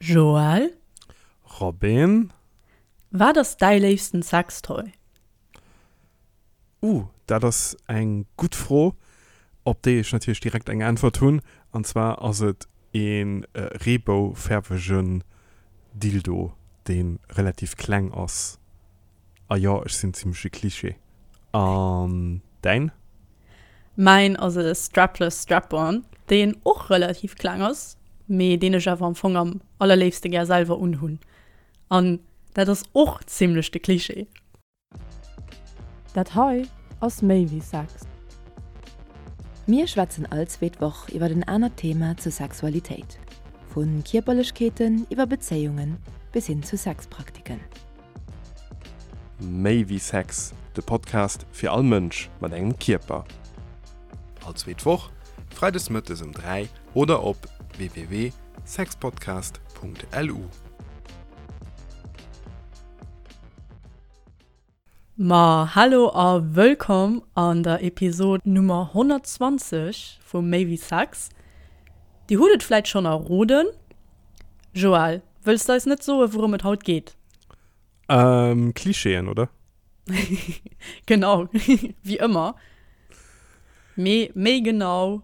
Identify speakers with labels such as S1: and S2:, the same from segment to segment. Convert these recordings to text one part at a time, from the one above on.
S1: Joël?
S2: Robin?
S1: Wat ass däi léifsten Sextoy?
S2: Uh, dat ass eng gutt Fro, op déi ech natierlech direkt eng Äntwert hunn. An zwar ass et ee reeboufäerwegen Dildo, dee relativ kleng ass. A jo, ech sinn zimmlech e Klischee. An däin?
S1: Mäin ass e Strapless Strap-on, deen och relativ kleng ass, mee deen ech awer am Fong am allerléifste gär selwer unhunn. An dat ass och zimmlech de Klischee. Dat hei ass méi wéi Sex.
S3: Mir schwätzen all zweet Woch iwwer en anert Thema zur Sexualitéit, vu Kierperlechkeeten iwwer Bezéiungen bis hin zu Sexpraktiken.
S2: Méi wéi Sex, de Podcast fir all Mënsch mat engem Kierper. All zweet Woch, freides mëttes um 3 oder op www.sexpodcast.lu.
S1: Ma hallo a wëllkomm an der Episod Nummer 120 vu Méi wéi Sex. Dir hutt et vläit schonn erroden. Joël, wëlls de eis net soen, wourëm et haut geet?
S2: Ähm, Klischeeën, oder?
S1: Genau, wéi ëmmer. Mee méi genau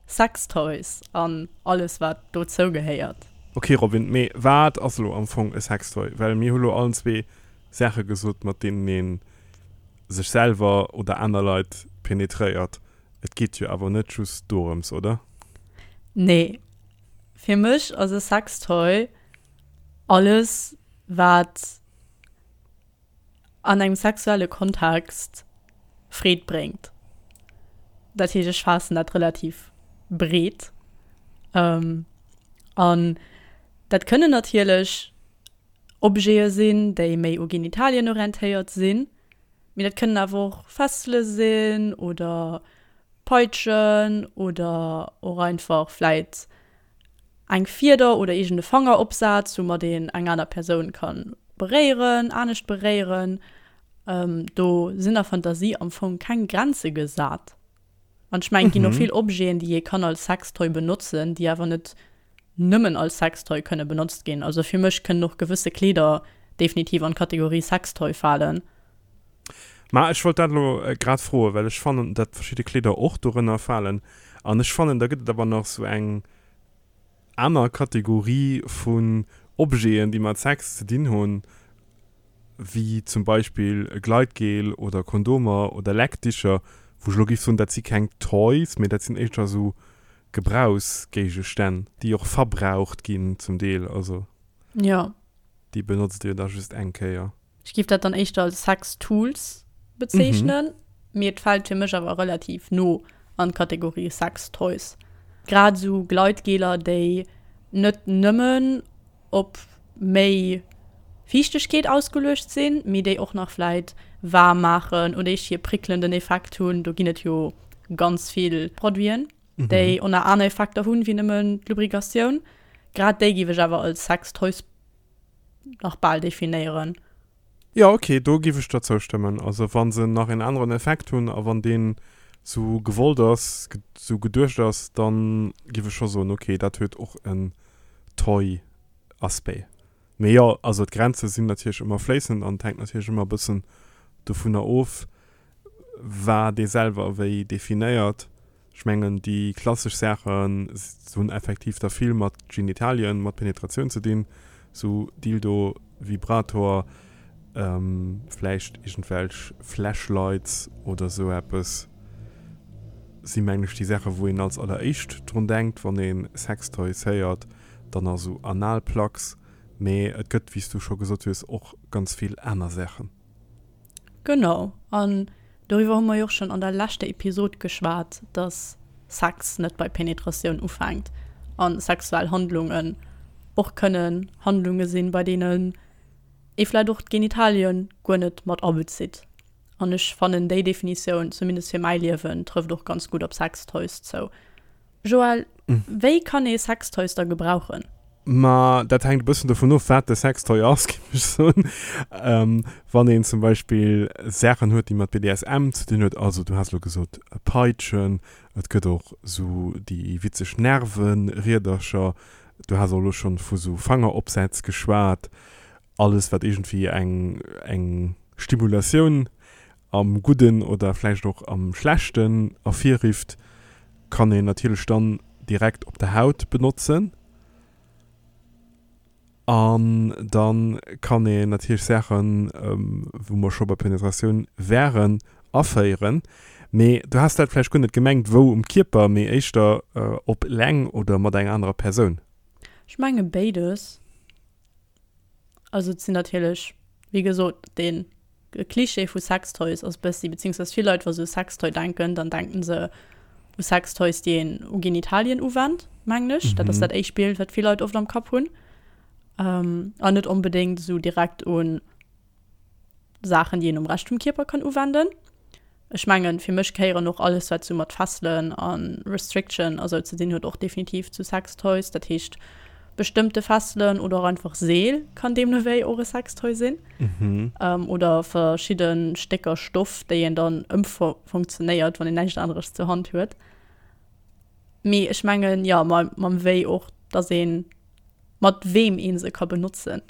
S1: Sextoys an alles wat dozou gehéiert.
S2: Ok Robin, mee wat ass elo am Fong e Sextoy? Well mir hu lo allen zwee Saache gesot mat deenen een sech selwer oder aner Leit penetréiert. Et geet jo awer net just dorëms, oder?
S1: Nee, fir mech ass e Sextoy alles wat an engem sexuelle Kontext Freed bréngt. Dat heescht, ech faassen dat relativ breet. An dat kënnen natierlech Objete sinn, déi méi u Genitalien orientéiert sinn, mee dat kënnen awer och Fessele sinn oder Peitschen oder och einfach vläit eng Fieder oder iergend e Fangeropsaz, woumat een eng aner Persoun ka beréieren, anescht beréieren. Do sinn der Fantasie am Fong keng Grenze gesat. An ech mengen, et ginn och vill Objeten, déi ee kann als Sextoy benotzen, déi awer net nëmmen als Sextoy kënne benotzt ginn. Also fir mech kënnen och gewësse Kleeder definitiv an d'Kategorie Sextoy falen.
S2: Ma ech wollt dat elo grad froen, well ech fannen, datt verschidde Kleeder och dorënner falen. An ech fannen, da gëtt et awer nach sou eng aner Kategorie vun Objeten, déi mat Sex ze dinn hunn, wéi zum Beispill e Gleitgel oder Kondomer oder Leckdicher, wou ech elo géif soen, dat si keng Toys, mee dat sinn éischter esou Gebrauchsgéigestänn, déi och verbraucht ginn zum Deel. Also
S1: Jo.
S2: déi benotzt Dir da just eng Kéier.
S1: Ech géif dat dann éischter als Sex-Tools bezeechnen, mee et fält fir mech awer relativ no an d'Kategorie Sex-Toys. Grad esou Gleitgeler, déi net nëmmen op méi Fiichtegkeet ausgeluecht sinn, mee déi och nach vläit waarm maachen oder eescht hir prickelnden Effekt hunn. Do ginn et jo ganz vill Produiten, déi och nach aner Effekter hunn, wéi nëmmen d'Lubrikatioun. Grad déi géif ech awer als Sex-Toys nach bal definéieren.
S2: Jo ok, do giff ech der zoustëmmen. Also wann se nach een aneren Effekt hunn a wann deen sou gewollt ass, sou geduecht ass, dann giff ech scho soen ok, dat huet och en Toy Aspect. Mee jo, also d'Grenze sinn natierlech ëmmer fléissend an et hänkt natierlech ëmmer e bëssen dovunner of, wat ee selwer wéi definéiert. Ech mengen déi klassesch Saachen hunn effektiv da vill mat Genitalien, mat Penetratioun ze dinn, sou Dildo, Vibrator, vläicht iergendwelch Flashlights oder sou eppes si mengen ech déi Saache wou een als alleréischt drun denkt wann ee Sextoys héiert. Dann nach sou Analplugs, mee et gëtt wéi s du scho gesot hues och ganz vill aner Saachen.
S1: Genau, an doriwwer hu mer jo och schonn an der leschter Episod geschwat, dass Sex net bei Penetratioun ufänkt a sexuell Handlungen och kënnen Handlunge sinn, bei deenen ee vläicht och d'Genitalien guer net mat abezitt. An ech fannen déi Definitioun, zumindest fir mäi Liewen, trëfft och ganz gutt op Sextoys zou. Joël, wéi kann ee Sextoys da gebrauchen?
S2: Ma dat hänkt e bëssen dovun of, wat de Sextoy ass, géif ech soen. Wann een zum Beispill Saachen huet, déi mat BDSM ze dinn huet, also du has elo gesot Peitschen, et gëtt och esou déi witzeg Nerve-Riedercher. Du has och elo schonn vu sou Fangeropsätz geschwat. Alles wat iergendwéi eng eng Stimulatioun am Gudden oder vläicht och am Schlechten ervirrifft, kann een natierlech dann direkt op der Haut benotzen. An da kann een natierlech Saachen, wou mer scho bei Penetratioun wären, aféieren. Mee du has dat vläicht guer net gemengt, wou um Kierper, mee éischter op eleng oder mat enger anerer Persoun.
S1: Ech menge béides. Also et sinn natierlech, wéi gesot, dee Klischee vu Sextoys ass bëssi, beziehungsweise vill Leit, wa se u Sextoy denken, dann denken se u Sextoys, déi een u Genitalien uwennt, mengen ech. Dat ass dat éischt Bild, wat vill Leit oft am Kapp hunn. An net onbedéngt esou direkt un Saachen, déi een um Rescht vum Kierper kann uwenden. Ech mengen, fir mech gehéieren och alles, wat sou mat Fesselen a Restriction a sou ze dinn huet, och definitiv zu Sextoys. Dat heescht, bestëmmte Fesselen oder och einfach Seel kann deemno wéi och e Sextoy sinn. Oder verschidde Stécker Stoff, déi een dann ëmfunktionéiert, wann een näischt aneres zur Hand huet. Mee ech mengen, jo, mam wéi och, dass een mat weem ee se ka benotzen.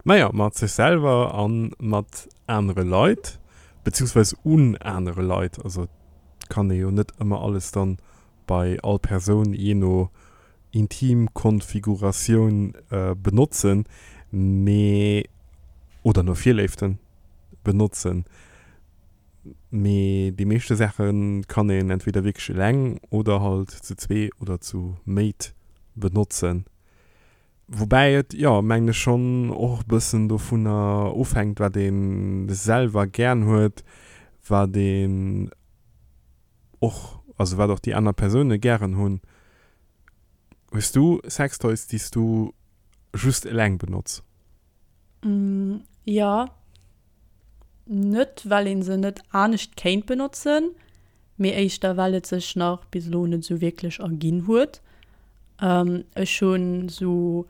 S2: Naja, mat sech selwer a mat anere Leit, beziehungsweise un anere Leit. Also et kann ee jo net ëmmer alles dann bei all Persoun jee no Intimkonfiguratioun benotzen, mee, oder no Virléiften benotzen, mee déi meeschte Saache kann een entweder wierklech eleng oder halt zu zwee oder zu méit benotzen. Woubäi et, jo, mengen ech schonn och e bëssen dovunner ofhänkt, wat ee selwer gären huet, wat een och, also wat och déi aner Persoune gären hunn. Hues du Sextoys, déi s du just eleng benotz?
S1: Jo, net well een se net anescht kéint benotzen, mee éischter well et sech nach bis elo net esou wierklech erginn huet. Ech hunn esou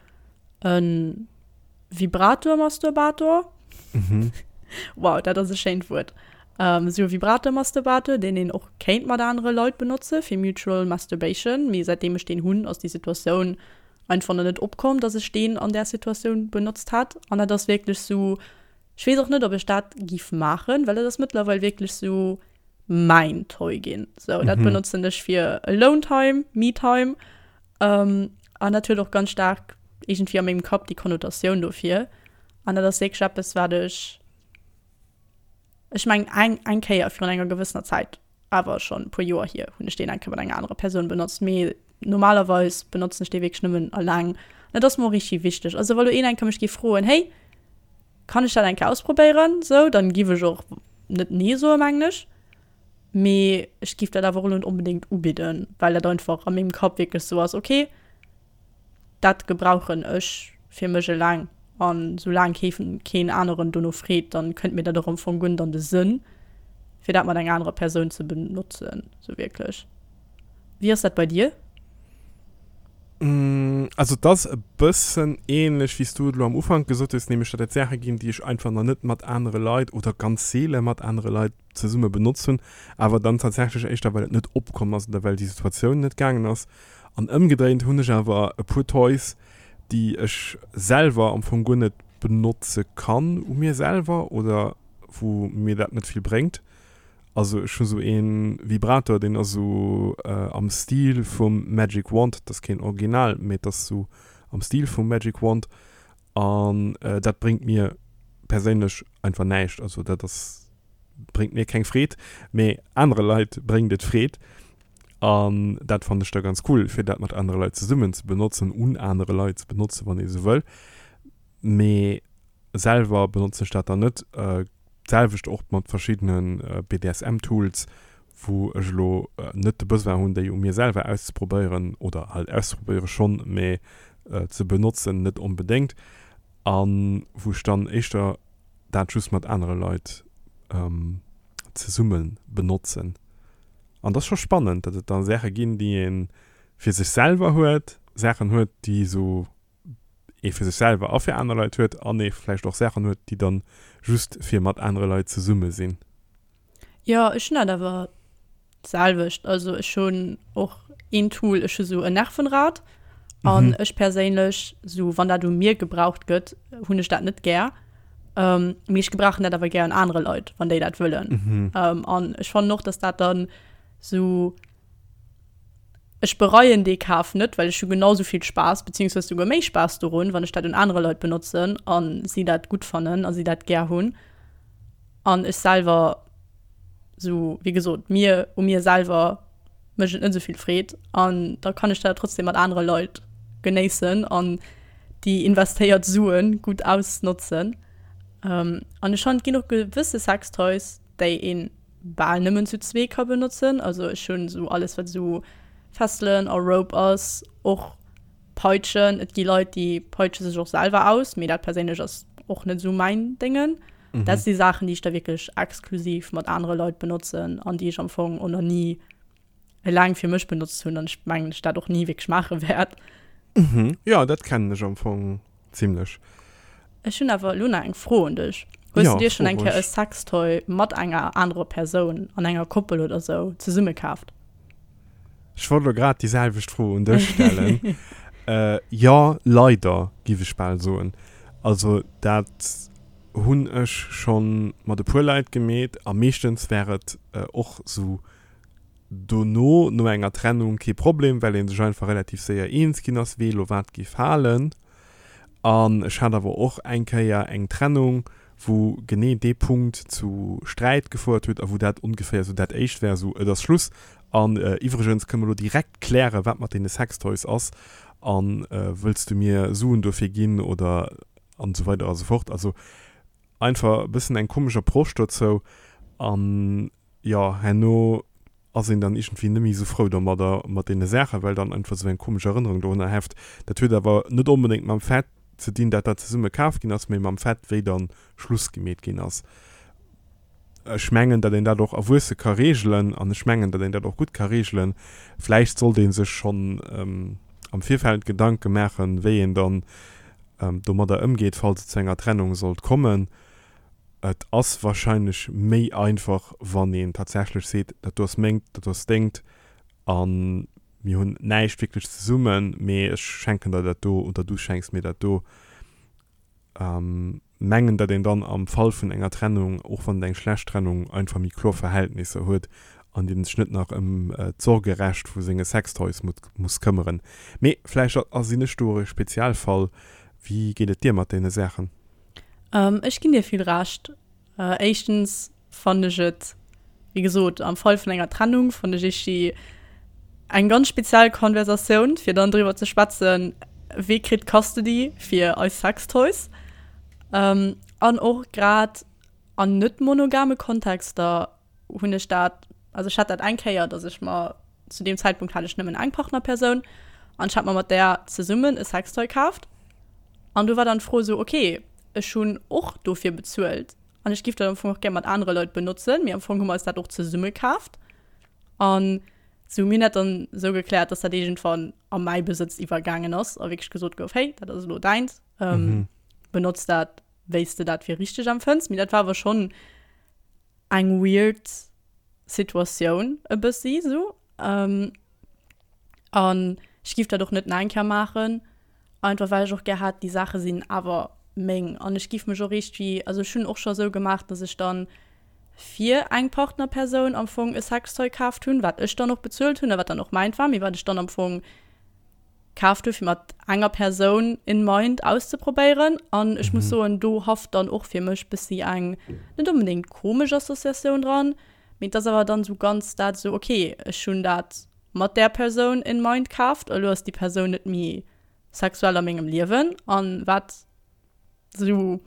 S1: e Vibrator-Masturbator, wow dat ass e schéint Wuert, esou e Vibrator-Masturbator deen een och kéint mat anere Leit benotze fir mutual masturbation, mee säitdeem ech deen hunn ass déi Situatioun einfach nach net opkomm, dass ech deen an där Situatioun benotzt hätt. An dat ass wierklech sou, ech weess och net, ob ech dat giff maachen, well dat ass mëttlerweil wierklech sou mäin Toy ginn. Sou, dat benotzen ech fir Alone Time, Me Time. An dat huet och ganz staark iergendwéi a mengem Kapp déi Konnotatioun dofir. An dat ass wierklech eppes, wat ech, ech mengen eng, eng Kéier virun enger gewëssener Zäit awer schonn e puer Joer hier, hunn ech deen eng Kéier mat enger anerer Persoun benotzt, mee normalerweis benotzen ech dee wierklech nëmmen alleng. An dat ass mer och richtig wichteg. Also wa lo een eng Kéier mech géif froen, hey, kann ech dat eng Kéier ausprobéieren, sou, dann giff ech och net nee soen, mengen ech. Mee ech giff dat awer och elo net onbedéngt ubidden, well dat einfach a mengem Kapp wierklech sou ass, okay, Dat gebrauchen ech fir mech eleng an soulaang kee keen aneren dono freet, dann kënnt mir dat och am Fong guer net an de Sënn fir dat mat enger anerer Persoun ze benotzen sou wierklech. Wéi ass dat bei dir?
S2: Also et ass e bëssen ähnlech wéi s du et elo am Ufank gesot hues, nämlech datt et Saache ginn déi ech einfach nach net mat anere Leit oder ganz seele mat anere Leit zesumme benotzt hunn, awer dann tatsächlech éischter well et net opkomm ass oder well déi Situatioun net gaangen ass. An ëmgedréint hunn ech awer e puer Toys, déi ech selwer am Fong guer net benotze kann u mir selwer oder wou mir dat net vill bréngt. Also ech hu sou ee Vibrator, deen ass sou am Stil vum Magic Wand, dat ass keen Original, mee et ass sou am Stil vum Magic Wand an dat bréngt mir perséinlech einfach näischt. Also dat ass, bréngt mir keng Freed, mee anere Leit bréngt et Freed. An dat fannen ech da ganz cool, fir dat mat anere Leit zesummen ze benotzen, un anere Leit ze benotzen, wann ee sou wëll. Mee selwer benotzen ech dat dann net. D'selwecht och mat verschiddene BDSM-Tools, wou ech elo net de Besoin hunn, déi u mir selwer auszeprobéieren, oder halt auszeprobéiere schonn, mee ze benotzen net onbedéngt. A wou ech dann éischter dat just mat anere Leit zesumme benotzen. An dat ass scho spannend, datt et da Saache ginn, déi ee fir sech selwer huet, Saachen huet, déi esou ee fir sech selwer a fir aner Leit huet, an ee vläicht och Saachen huet, déi dann just fir mat anere Leit zesumme sinn.
S1: Jo, ech hunn dat awer d'selwecht. Also ech hunn och een Tool, ech hu sou en Nervenrad. An ech perséinlech, sou wann dat u mir gebraucht gëtt, hunn ech dat net gär. Mee ech gebrauchen dat awer gär un anere Leit, wann déi dat wëllen. An ech fannen och, dass dat dann sou, ech bereien dee Kaf net, well ech hu genau sou vill Spaass, beziehungsweise souguer méi Spaass dorun, wann ech dat un anere Leit benotzen a si dat gutt fannen a si dat gär hunn. An ech selwer, sou wéi gesot, mir u mir selwer mécht et net esou vill Freed an da kann ech dat trotzdem mat anere Leit genéissen an déi investéiert Sue gutt ausnotzen. An ech fannen, et ginn och gewësse Sextoys, déi ee bal nëmmen zu zwee ka benotzen. Also ech hunn esou alles, wat esou Fesselen a Rope ass, och Peitschen. Et gi Leit, déi peitsche sech och selwer aus, mee dat perséinlech ass och net esou mäin Déngen. Dat si Saachen, déi ech da wierklech exklusiv mat anere Leit benotzen an déi ech am Fong och nach ni eleng fir mech benotzt hunn an ech mengen, ech dat och ni wierklech maache wäert.
S2: Mhm, jo, dat kennen ech am Fong zimlech.
S1: Ech hunn awer elo nach eng Fro un dech. Hues du dir schonn eng Kéier e Sextoy mat enger anerer Persoun an enger Koppel oder sou zesumme kaaft?
S2: Ech wollt elo grad déi selwecht Fro un dech stellen. Jo, leider, giff ech bal soen. Also dat hunn ech scho mat e puer Leit gemeet a meeschtens war et och sou dono, no enger Trennung, kee Problem, well ee sech einfach relativ séier eens ginn ass, wee elo wat géif halen. An ech hat awer och eng Kéier eng Trennung, wou genee dee Punkt zu Sträit gefouert huet a wou dat ongeféier sou dat éischt war, sou et ass Schluss an iwwregens kënne mer elo direkt klären, wat mat deene Sextoys ass a wëlls du mir Suen dofir ginn oder an esou weider a sou fort. Also einfach e bëssen eng komesch Approche dozou an jo, herno ass een dann iergendwéi net méi esou frou domadder, mat deene Saachen, well dann einfach esou eng komesch Erënnerung dorunner heft. Dat huet awer net onbedéngt mam Fait ze dinn, dat dat zesumme kaf ginn ass, mee mam Fait, wéi dann Schluss gemeet ginn ass. Ech mengen, datt een dat och erwuesse ka reegelen an ech mengen, datt een dat och gutt ka reegelen. Vläicht sollt ee sech schonn am Virfeld Gedanke maachen, wéi een dann domadder ëmgeet, falls et zu enger Trennung sollt kommen. Et ass wahrscheinlech méi einfach, wann een tatsächlech seet, dat do ass mengt, dat do ass dengt a mir hunn näischt wierklech zesummen, mee ech schenken der dat do oder du schenks mir dat do. Mengen, datt een dann am Fall vun enger Trennung, och wann et eng schlecht Trennung, einfach méi kloer Verhältnisser huet an een sech net nach ëm d'Sorgerecht vu senge Sextoys muss këmmeren. Mee vläicht sinn ech do och e Spezialfall. Wéi geet et dir mat deene Saachen?
S1: Ech ginn dir vill Recht. Éischtens fannen ech et, wéi gesot, am Fall vun enger Trennung fannen ech iergdi eng ganz speziell Konversatioun, fir dann driwwer ze schwätzen, wee kritt Custody fir eis Sextoys. An och grad an net monogame Kontexter hunn ech dat, also ech hat dat eng Kéier, dass ech mer, zu deem Zäitpunkt hat ech nëmmen eng Partnerpersoun an ech hat mer mat där zesummen e Sextoy kaaft an do war dann d'Fro esou, okay, ech hunn och dofir bezuelt an ech giff dat am Fong och gär mat anere Leit benotzen, mee am Fong hu mer eis dat och zesumme kaaft an sou mir hunn dat dann esou gekläert, dass dat iergendwann a mäi Besëtz iwwergaangen ass a wierklech gesot gouf, hey, dat ass elo däins, benotz dat wéi s de dat fir richteg empfënns. Mee dat war awer schonn eng weird Situatioun e bëssi sou. Ähm, an ech giff dat och net nach eng Kéier maachen, einfach well ech och gär hat, déi Saache sinn awer meng. An ech giff mech och iergendwéi, also ech hunn och scho sou gemaach, dass ech dann fir eng Partnerpersoun am Fong e Sextoy kaaft hunn, wat ech dann och bezuelt hunn a wat dann och mäint war, mee wat ech dann am Fong kaaft hu fir mat enger Persoun in mind auszeprobéieren an ech muss soen, do haft dann och fir mech bëssi eng net onbedéngt komesch Associatioun dran, mee et ass awer dann esou ganz dat esou, ok ech hunn dat mat där Persoun in mind kaaft, elo ass déi Persoun net méi sexuell a mengem Liewen an wat Sou,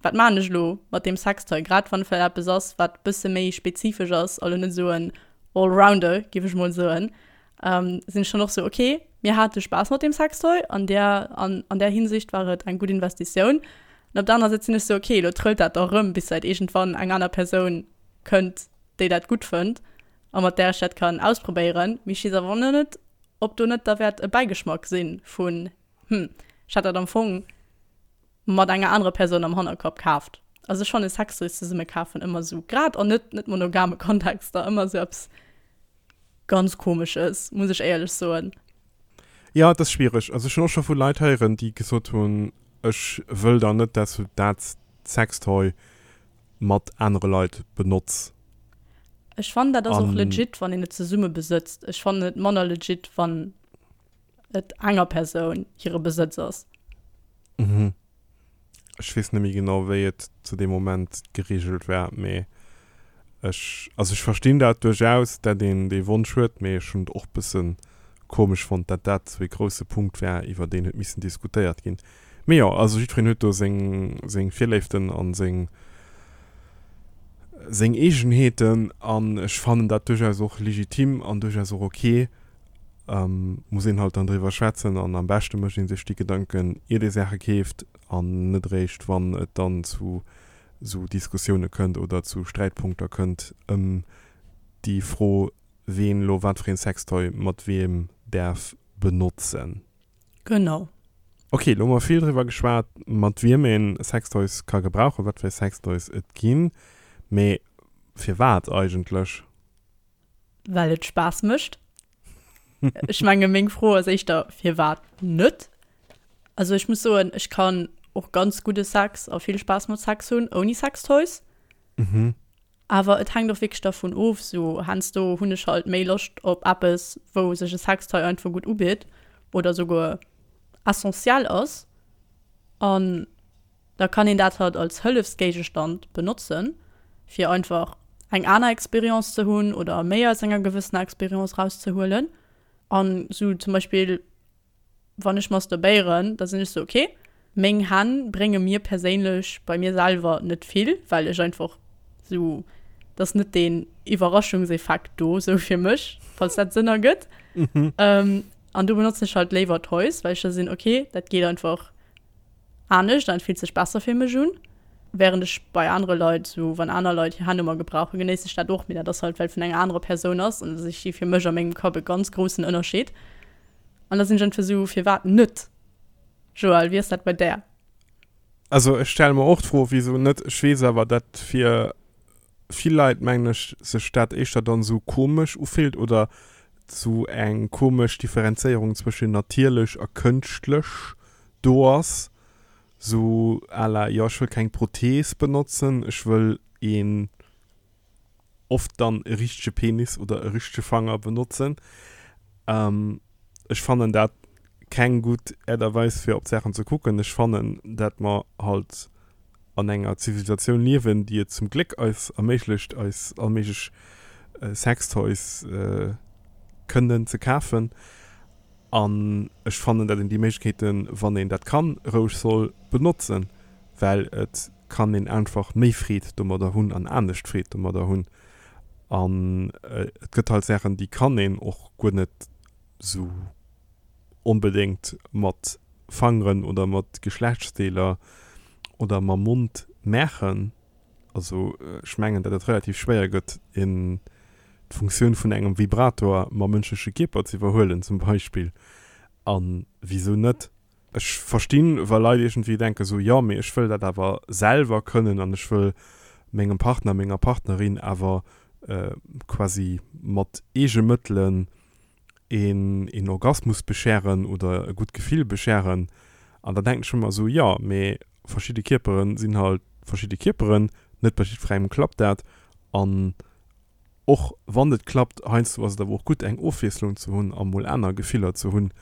S1: wat maan ech elo mat deem Sextoy? Grad wann et vläicht eppes ass, wat bësse méi spezifesch ass, also net esou en Allrounder, géif ech mol soen, sinn ech dann och sou, ok, mir hate Spaass mat deem Sextoy, an där, an an där Hinsicht war et eng gutt Investitioun. An op der anerer Säit sinn ech sou, ok, elo trëllt dat da rëm, bis vläicht iergendwann eng aner Persoun kënnt, déi dat gutt fënnt a mat där ech dat kann ausprobéieren. Mee ech weess awer och net, ob do net da wäert e Bäigeschmack si vun Hm, ech hat dat am Fong mat enger anerer Persoun am Hannerkapp kaaft. Also ech fannen Sextoys zesumme kafen ëmmer sou, grad an net net monogame Kontexter, ëmmer sou eppes ganz komesches, muss ech éierlech soen.
S2: Jo, et ass schwiereg. Also ech hunn och scho vu Leit héieren, déi gesot hunn, ech wëll dann net, dass du dat Sextoy mat anere Leit benotz.
S1: Ech fannen dat ass och legit, wann een et zesumme besëtzt. Ech fannen et manner legit, wann et enger Persoun hire Besëtz ass.
S2: Mhm. Ech weess net méi genau, wéi et zu deem Moment gereegelt war, mee ech, also ech verstinn dat duerchaus, dat een dee Wonsch huet, mee ech hunn et och bësse komesch fonnt, dat dat esou ee grousse Punkt war, iwwer deen huet missen diskutéiert ginn. Mee jo, also jiddwereen huet do seng, seng Virléiften an seng, seng Eegenheeten an ech fannen dat duerchaus och legitim an duerchaus och ok. Muss een halt dann driwwer schwätzen an am beschte mécht ee sech déi Gedanken iert ee Saache keeft an net eréischt wann et dann zu esou Diskussioune kënnt oder zu Sträitpunkter kënnt ëm déi Fro ween elo wat fir een Sextoy mat weem däerf benotzen.
S1: Genau.
S2: Ok, elo hu mer vill driwwer geschwat mat wiem een Sextoys ka gebrauchen, wat fir Sextoys et ginn, mee firwat eigentlech?
S1: Well et Spaass mécht. Ech menge meng Fro ass éischter, firwat net? Also ech muss soen, ech kann och ganz gudde Sex a vill Spaass mat Sex hunn ouni Sextoys.
S2: Mhm.
S1: Awer et hänkt och wierklech dervun of, sou heiansdo hunn ech halt méi Loscht op eppes, wou sech e Sextoy einfach gutt ubitt oder souguer essentiell ass. An Da kann een dat halt als Hëllefsgéigestand benotzen, fir einfach eng aner Experience ze hunn oder méi aus enger gewëssener Experience rauszehuelen. An sou zum Beispill, wann ech masturbéieren, da sinn ech sou, okay, meng Hänn brénge mir perséinlech bei mir selwer net vill, well ech einfach sou, et ass net deen Iwwerraschungseffekt do sou fir mech, falls dat Sënn ergëtt. An do benotzen ech halt léiwer Toys, well ech da sinn, okay, dat geet einfach anescht an et fillt sech besser fir mech un. Während ech bei anere Leit, sou wann aner Leit hir Hänn u mer gebrauchen, genéiss ech dat och, mee dat ass halt well vun enger anerer Persoun ass an ech si fir mech a mengem Kapp e ganz groussen Ënnerscheed. An da sinn ech einfach sou, firwat net? Joël, wéi ass dat bei där?
S2: Also ech stelle mer och d'Fro, wisou net. Ech weess awer, dat fir vill Leit, mengen ech, sech dat éischter dann esou komesch ufillt oder sou eng komesch Differenzéierung zwëschen natierlech a kënschtlech do ass, sou à la, jo ech wëll keng Prothees benotzen, ech wëll een, oft dann e richtege Penis oder e richtege Fanger benotzen. Ech fannen dat keng gutt Äert a Weis fir op d'Saachen ze kucken. Ech fannen dat mer halt an enger Zivilisatioun liewen, déi et zum Gléck eis erméiglecht eis all méiglech Sextoys kënnen ze kafen. An ech fannen, dat een déi Méiglechkeeten, wann een dat kann, roueg soll benotzen, well et kann een einfach méi Freed domadder hunn an anescht Freed domadder hunn. An et gëtt halt Saachen, déi kann een och guer net esou onbedéngt mat Fangeren oder mat Geschlechtsdeeler oder mam Mond maachen. Also ech mengen, datt et relativ schwéier gëtt, een d'Funktioun vun engem Vibrator mam mënschleche Kierper ze iwwerhuelen zum Beispill. A wisou net? Ech verstinn, wa Leit iergendwéi denken, esou, jo, mee ech wëll dat awer selwer kënnen an ech wëll mengem Partner, menger Partnerin awer quasi mat eege Mëttelen een een Orgasmus bescheren oder e gutt Gefill bescheren. An da denken ech ëmmer esou, jo, mee verschidde Kierpere sinn halt verschidde Kierperen, net bei jiddwerengem klappt dat. An och wann et klappt, heiansdo ass et awer och gutt eng Ofwiesslung ze hunn a mol aner Gefiller ze hunn.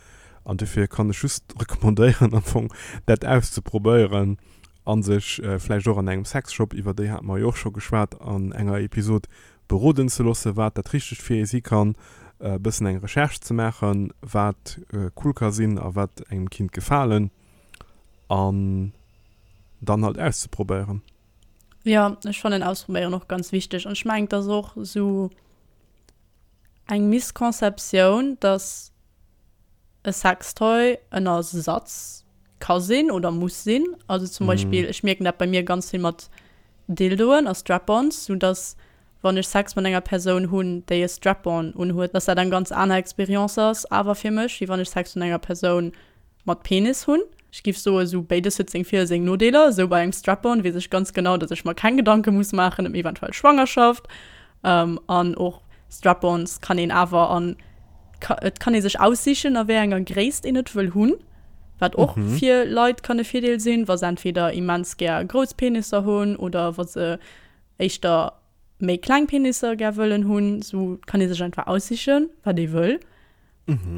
S2: An dofir kann ech just recommandéieren am Fong dat auszeprobéieren a sech vläicht och an engem Sexshop, iwwer déi hate mer jo och scho geschwat an enger Episod, beroden ze loossen, wat dat Richtegt fir ee si kann, e bëssen eng Recherche ze maachen, wat cool ka sinn a wat engem kinnt gefalen an dann halt auszeprobéieren.
S1: Jo, ech fannen ausprobéieren och ganz wichteg an ech mengen, et ass och esou eng Misconceptioun, dass e Sextoy en Ersatz ka sinn oder muss sinn. Also zum Beispill, ech mierken dat bei mir ganz vill mat Dildoen a Strap-ons, sou dass wann ech Sex mat enger Persoun hunn, déi e Strap-on unhuet, dass dat eng ganz aner Experience ass awer fir mech, wéi wann ech Sex mat enger Persoun mat Penis hunn. Ech giff soen, sou béides huet seng Vir a seng Nodeeler. Sou bei engem Strap-on weess ech ganz genau, dass ech mer keng Gedanke muss maachen ëm eventuell Schwangerschaft. An och Strap-ons kann een awer an. Et kann ee sech aussichen, a wéi enger Gréisst een et wëll hunn, wat och fir Leit kann e Virdeel sinn, wa se entweder immens gär grouss Penisser hunn oder wa se éischter méi kleng Penisser gär wëllen hunn. Sou kann ee sech einfach aussichen, wat ee wëll.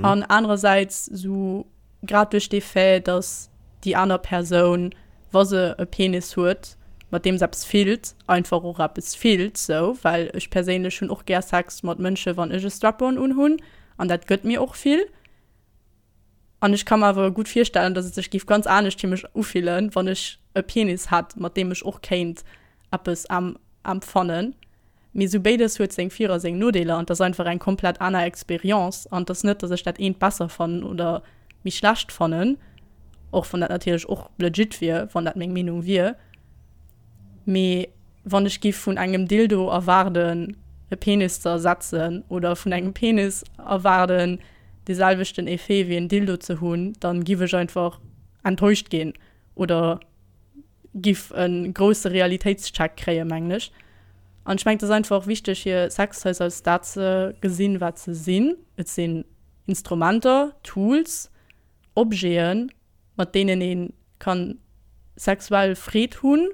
S1: An anerersäits sou grad duerch dee Fait, dass déi aner Persoun, wa se e Penis huet, mat deem se eppes fillt, einfach och eppes fillt sou, well ech perséinlech hunn och gär Sex mat Mënsche wann ech e Strap-on unhunn an dat gëtt mir och vill. An ech ka mer awer gutt virstellen, dass et sech géif ganz anescht fir mech ufillen, wann ech e Penis hätt, mat deem ech och kéint eppes empfannen. Mee esou béides huet seng Vir a seng Nodeeler an 't ass einfach eng komplett aner Experience an 't ass net, dass ech dat eent besser fannen oder méi schlecht fannen, och wann dat natierlech och legit wier, wann dat meng Meenung wier. Mee wann ech giff vun engem Dildo erwaarden e Penis ze ersetzen oder vun engem Penis erwaarden dee selwechten Effet wéi en Dildo ze hunn, dann giff ech einfach enttäuscht ginn oder giff e grousse Realitéitscheck kréien, mengen ech. An ech mengen, et ass einfach wichteg, hir Sextoys als dat ze gesinn, wat se sinn. Et sinn Instrumenter, Tools, Objeten, mat deenen ee ka sexuell Freed hunn.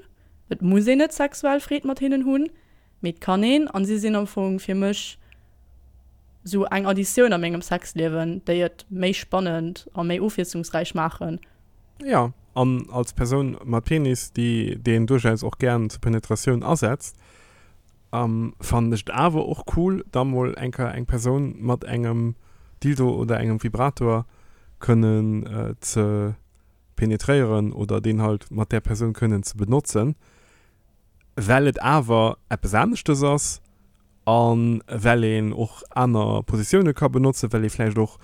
S1: Et muss een net sexuell Freed mat hinnen hunn, mee et kann een. An si sinn am Fong fir mech sou eng Additioun a mengem Sexliewen, déi et méi spannend a méi ofwiesslungsräich maachen.
S2: Jo, an als Persoun mat Penis, déi deen duerchaus och gären zur Penetratioun asetzt, fannen ech et awer och cool, da mol eng Kéier eng Persoun mat engem Dildo oder engem Vibrator kënnen ze penetréieren oder deen halt mat där Persoun kënnen ze benotzen, well et awer eppes aneschtes ass a well een och aner Positioune ka benotzen, well ee vläicht och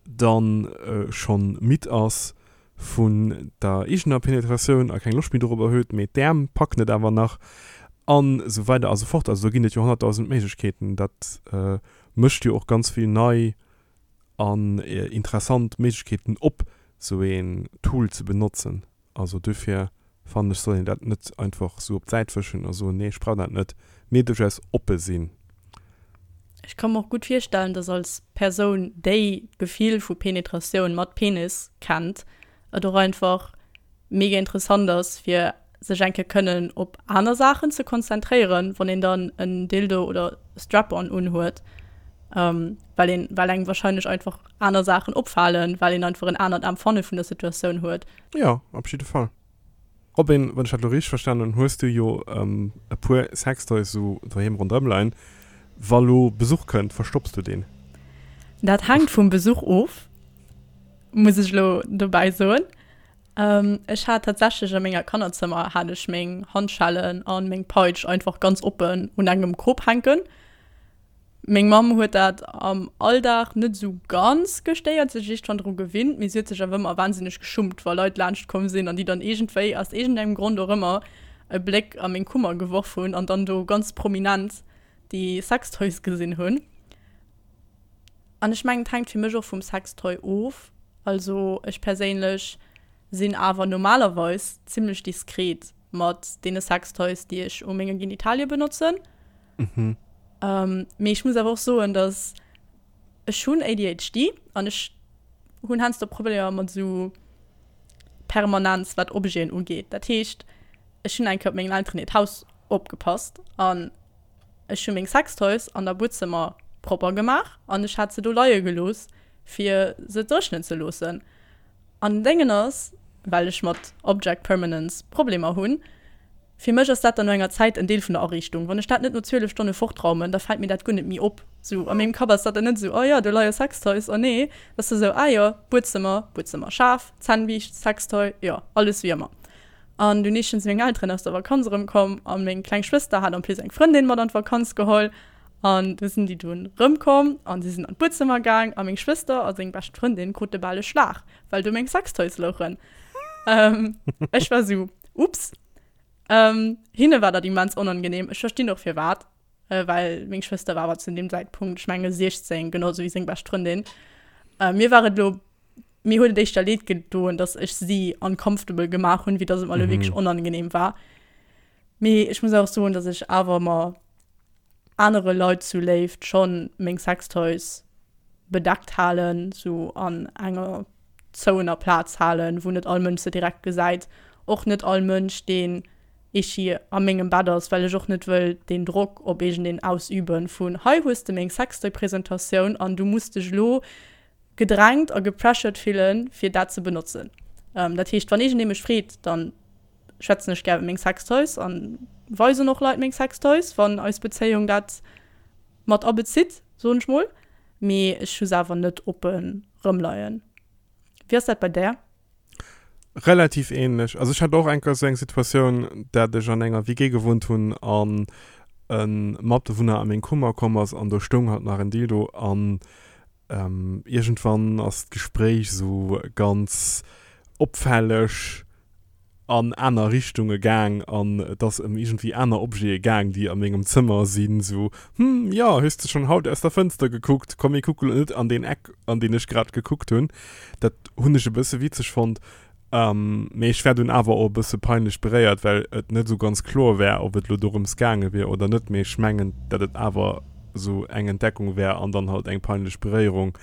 S2: dann schonn midd ass vun der eegener Penetratioun a keng Loscht méi dorobber huet, mee d'Äerm packen et awer nach an esou weider a sou fort. Also do ginn et jo honnertdausend Méiglechkeeten. Dat mécht jo och ganz vill nei an interessant Méiglechkeeten op, sou een Tool ze benotzen. Also duerfir fannen ech, soll een dat net einfach sou op d'Säit wëschen a soen, nee ech brauch dat net, mee duerchaus oppe sinn.
S1: Ech ka mer och gutt virstellen, dass als Persoun, déi d'Gefill vu Penetratioun mat Penis kennt, et och einfach mega interessant ass, fir sech eng Kéier kënnen op aner Saachen ze konzentréieren, wann een dann en Dildo oder Strap-on unhuet, well een, well engem wahrscheinlech einfach aner Saachen opfalen, well een einfach en anert Empfanne vun der Situatioun huet.
S2: Jo, op jidde Fall. Robin, wann ech dat elo richteg verstanen hunn, hues du jo e puer Sextoys esou doheem ronderëm leien. Wa lo Besuch kënnt, verstopps du deen?
S1: Dat hänkt vum Besuch of, muss ech elo dobäi soen. Ech hat tatsächlech a menger Kannerzëmmer hat ech meng Handschellen a meng Peitsch einfach ganz oppen un engem Krop hänken. Meng Mamm huet dat am Alldag net esou ganz gestéiert, sech iergendwann dru gewinnt, mee si huet sech awer ëmmer wahnsinneg geschummt, wa Leit laanscht komm sinn an déi dann iergendwéi, aus iergendengem Grond och ëmmer, e Bléck a meng Kummer geworf hunn an dann do ganz prominent déi Sextoys gesinn hunn. An ech mengen, et hänkt fir mech och vum Sextoy of. Also ech perséinlech sinn awer normalerweis zimmlech diskret mat deene Sextoys, déi ech u menge Genitalie benotzen.
S2: Mhm.
S1: Ähm, mee ech muss awer och soen, dass ech hunn ADHD an ech hunn heiansdo Problemer mat esou Permanenz, wat Objeten ugeet. Dat heescht, ech hunn eng Kéier op mengen Elteren hiert Haus opgepasst an ech hu meng Sextoys an der Buedzëmmer propper gemaach an ech hat se do leie gelooss, fir se dréchnen ze loossen. An den Déngen ass, well ech mat Object Permanence Problemer hunn, fir mech ass dat dann no enger Zäit en Deel vun der Ariichtung. Wann ech dat net no 12 Stonne fortraumen, da fält mir dat guer net méi op. Sou a mengem Kapp ass dat dann net esou, oh jo, do leie Sextoys, oh nee, dat ass da sou, ah jo, Buedzëmmer, Buedzëmmerschaf, Zännbiischt, Sextoy, jo, alles wéi ëmmer. An dunn eeschtens sinn meng Elteren aus der Vakanz erëmkomm a meng kleng Schwëster hat en plus eng Frëndin mat an d'Vakanz geholl. An du sinn déi dunn rëmkomm an si sinn an d'Buedzëmmer gaang a meng Schwëster a seng bescht Frëndin krute bal e Schlag, well do meng Sextoys louchen. Ech war sou, Ups. Hinne war dat immens onangenehm. Ech verstinn och firwat, well meng Schwëster war awer zu deem Zäitpunkt, ech menge 16, genau sou wéi seng bescht Frëndin. Mir war et elo, mir huet et éischter leed gedoen, datt ech si uncomfortable gemaach hunn, wéi datt et mer elo wierklech onangenehm war. Mee ech muss och soen, datt ech awer mer anere Leit zu Léift schonn meng Sextoys. bedeckt halen, sou an enger zouener Plaz halen, wou net all Mënsch se direkt gesäit. Och net all Mënsch, deen echi a mengem Bett ass, well ech och net wëll deen Drock op iergendeen ausüben vun, hei hues de meng Sextoy-Presentatioun an du muss dech elo gedrängt a gepressured fillen, fir dat ze benotzen. Dat heescht, wann iergendee mech freet, dann schwätzen ech gär iwwer meng Sextoys an weisen och Leit meng Sextoys, wann eis Bezéiung dat mat abezitt, soen ech mol. Mee ech hu se awer net oppe rëmleien. Wéi ass dat bei där?
S2: Relativ ähnlech. Also ech hat och eng Kéier esou eng Situatioun, dat ech an enger WG gewunnt hunn an e Matbewunner a meng Kummer komm ass an do stoung halt nach en Dildo an iergendwann ass d'Gespréich esou ganz opfälleg an aner Richtunge gaang an et ass ëm iergendwéi aner Objete gaang, déi a mengem Zëmmer sinn, sou, Hm, jo, hues de schonn haut aus der Fënster gekuckt? Komm mir kucke lo net an deen Eck, an deen ech grad gekuckt hunn. Dat hunn ech e bësse witzeg fonnt, mee ech war dunn awer och e bësse peinlech beréiert, well et net esou ganz kloer war, ob et lo dorëms gaange wier oder net. Mee ech mengen, dat et awer esou eng Entdeckung war an dann halt eng peinlech Beréierung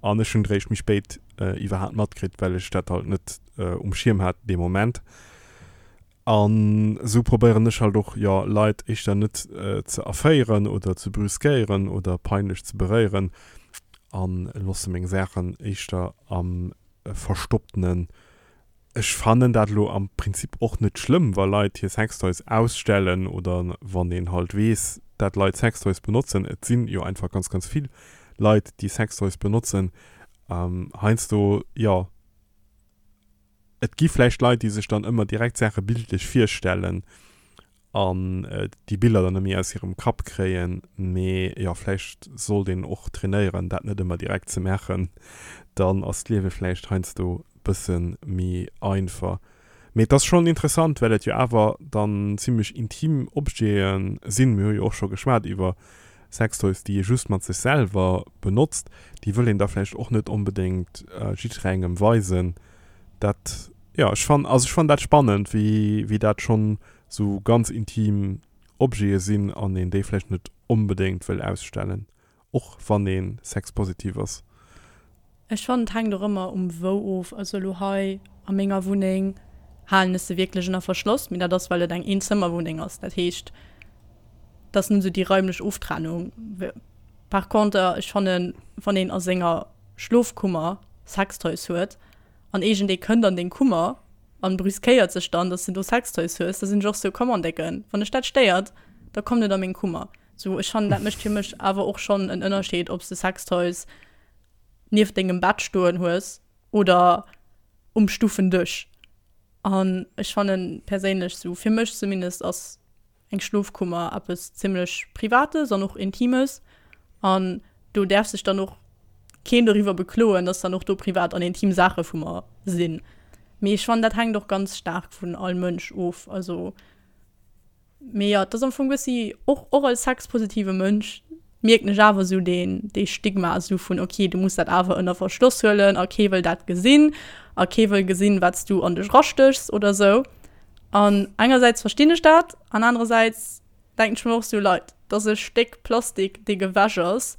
S2: an ech hunn et eréischt méi spéit iwwerhaapt matkritt, well ech dat halt net um Schierm hat dee Moment. An esou probéieren ech halt och, jo, Leit éischter net ze erféieren oder ze brüskéieren oder peinlech ze beréieren a loosse meng Saachen éischter am Verstopptenen. Ech fannen dat elo am Prinzip och net schlëmm, wa Leit hir Sextoys ausstellen oder wann een halt weess, dat Leit Sextoys benotzen. Et sinn jo einfach ganz, ganz vill Leit, déi Sextoys benotzen. Heiansdo, jo, Et gi vläicht Leit, déi sech dann ëmmer direkt Saache bildlech virstellen an déi Biller dann net méi aus hirem Kapp kréien. Mee jo, vläicht sollt een och trainéieren, dat net ëmmer direkt ze maachen. Dann ass d'Liewe vläicht heiansdo bësse méi einfach. Mee et ass schonn interessant, well et jo awer dann zimmlech intim Objete sinn. Mir hu jo och scho geschwat iwwer Sextoys, déi ee just mat sech selwer benotzt, déi wëll een da vläicht och net onbedéngt jiddwerengem weisen. Dat, jo, ech fann, also ech fann dat spannend, wéi, wéi dat schonn esou ganz intim Objete sinn an een déi vläicht net onbedéngt wëll ausstellen, och wann ee sexpositiv ass.
S1: Ech fannen et hänkt och ëmmer um wou of. Also elo hei a menger Wunneng halen ech se wierklech ënner Verschloss, mee dat ass well et eng Eenzëmmerwunneng ass. Dat heescht et ass net esou déi raimlech Oftrennung. Par conter ech fannen wann een a senger Schlofkummer Sextoys huet an iergendee kënnt an deng Kummer an brüskéiert sech dann, dass de do Sextoys hues, da sinn ech och sou, Come on Décken, wann dech dat stéiert, da komm net a meng Kummer. Sou ech fannen dat mécht fir mech awer och schonn en Ënnerscheed ob s de Sextoys nieft dengem Bett stoen hues oder um Stuffendësch. An ech fannen perséinlech, sou fir mech zumindest, ass eng Schlofkummer eppes zimmlech Privates an och Intimes. An do däerf sech dann och keen doriwwer bekloen, dass dann och do privat an intim Saache vu mer sinn. Mee ech fannen, dat hänkt och ganz staark vun all Mënsch of. Also Mee jo, et ass am Fong bëssi, och, och als sexpositive Mënsch mierken ech awer esou deen, dee Stigma esou vun, ok, du muss dat awer ënner Verschloss huelen a kee wëll dat gesinn a kee wëll gesinn, wat s du an dech erastéchs oder esou. An engersäits verstinn ech dat an anerersäits denken ech mer och esou, Leit, dat ass e Stéck Plastik, dee gewäsch ass.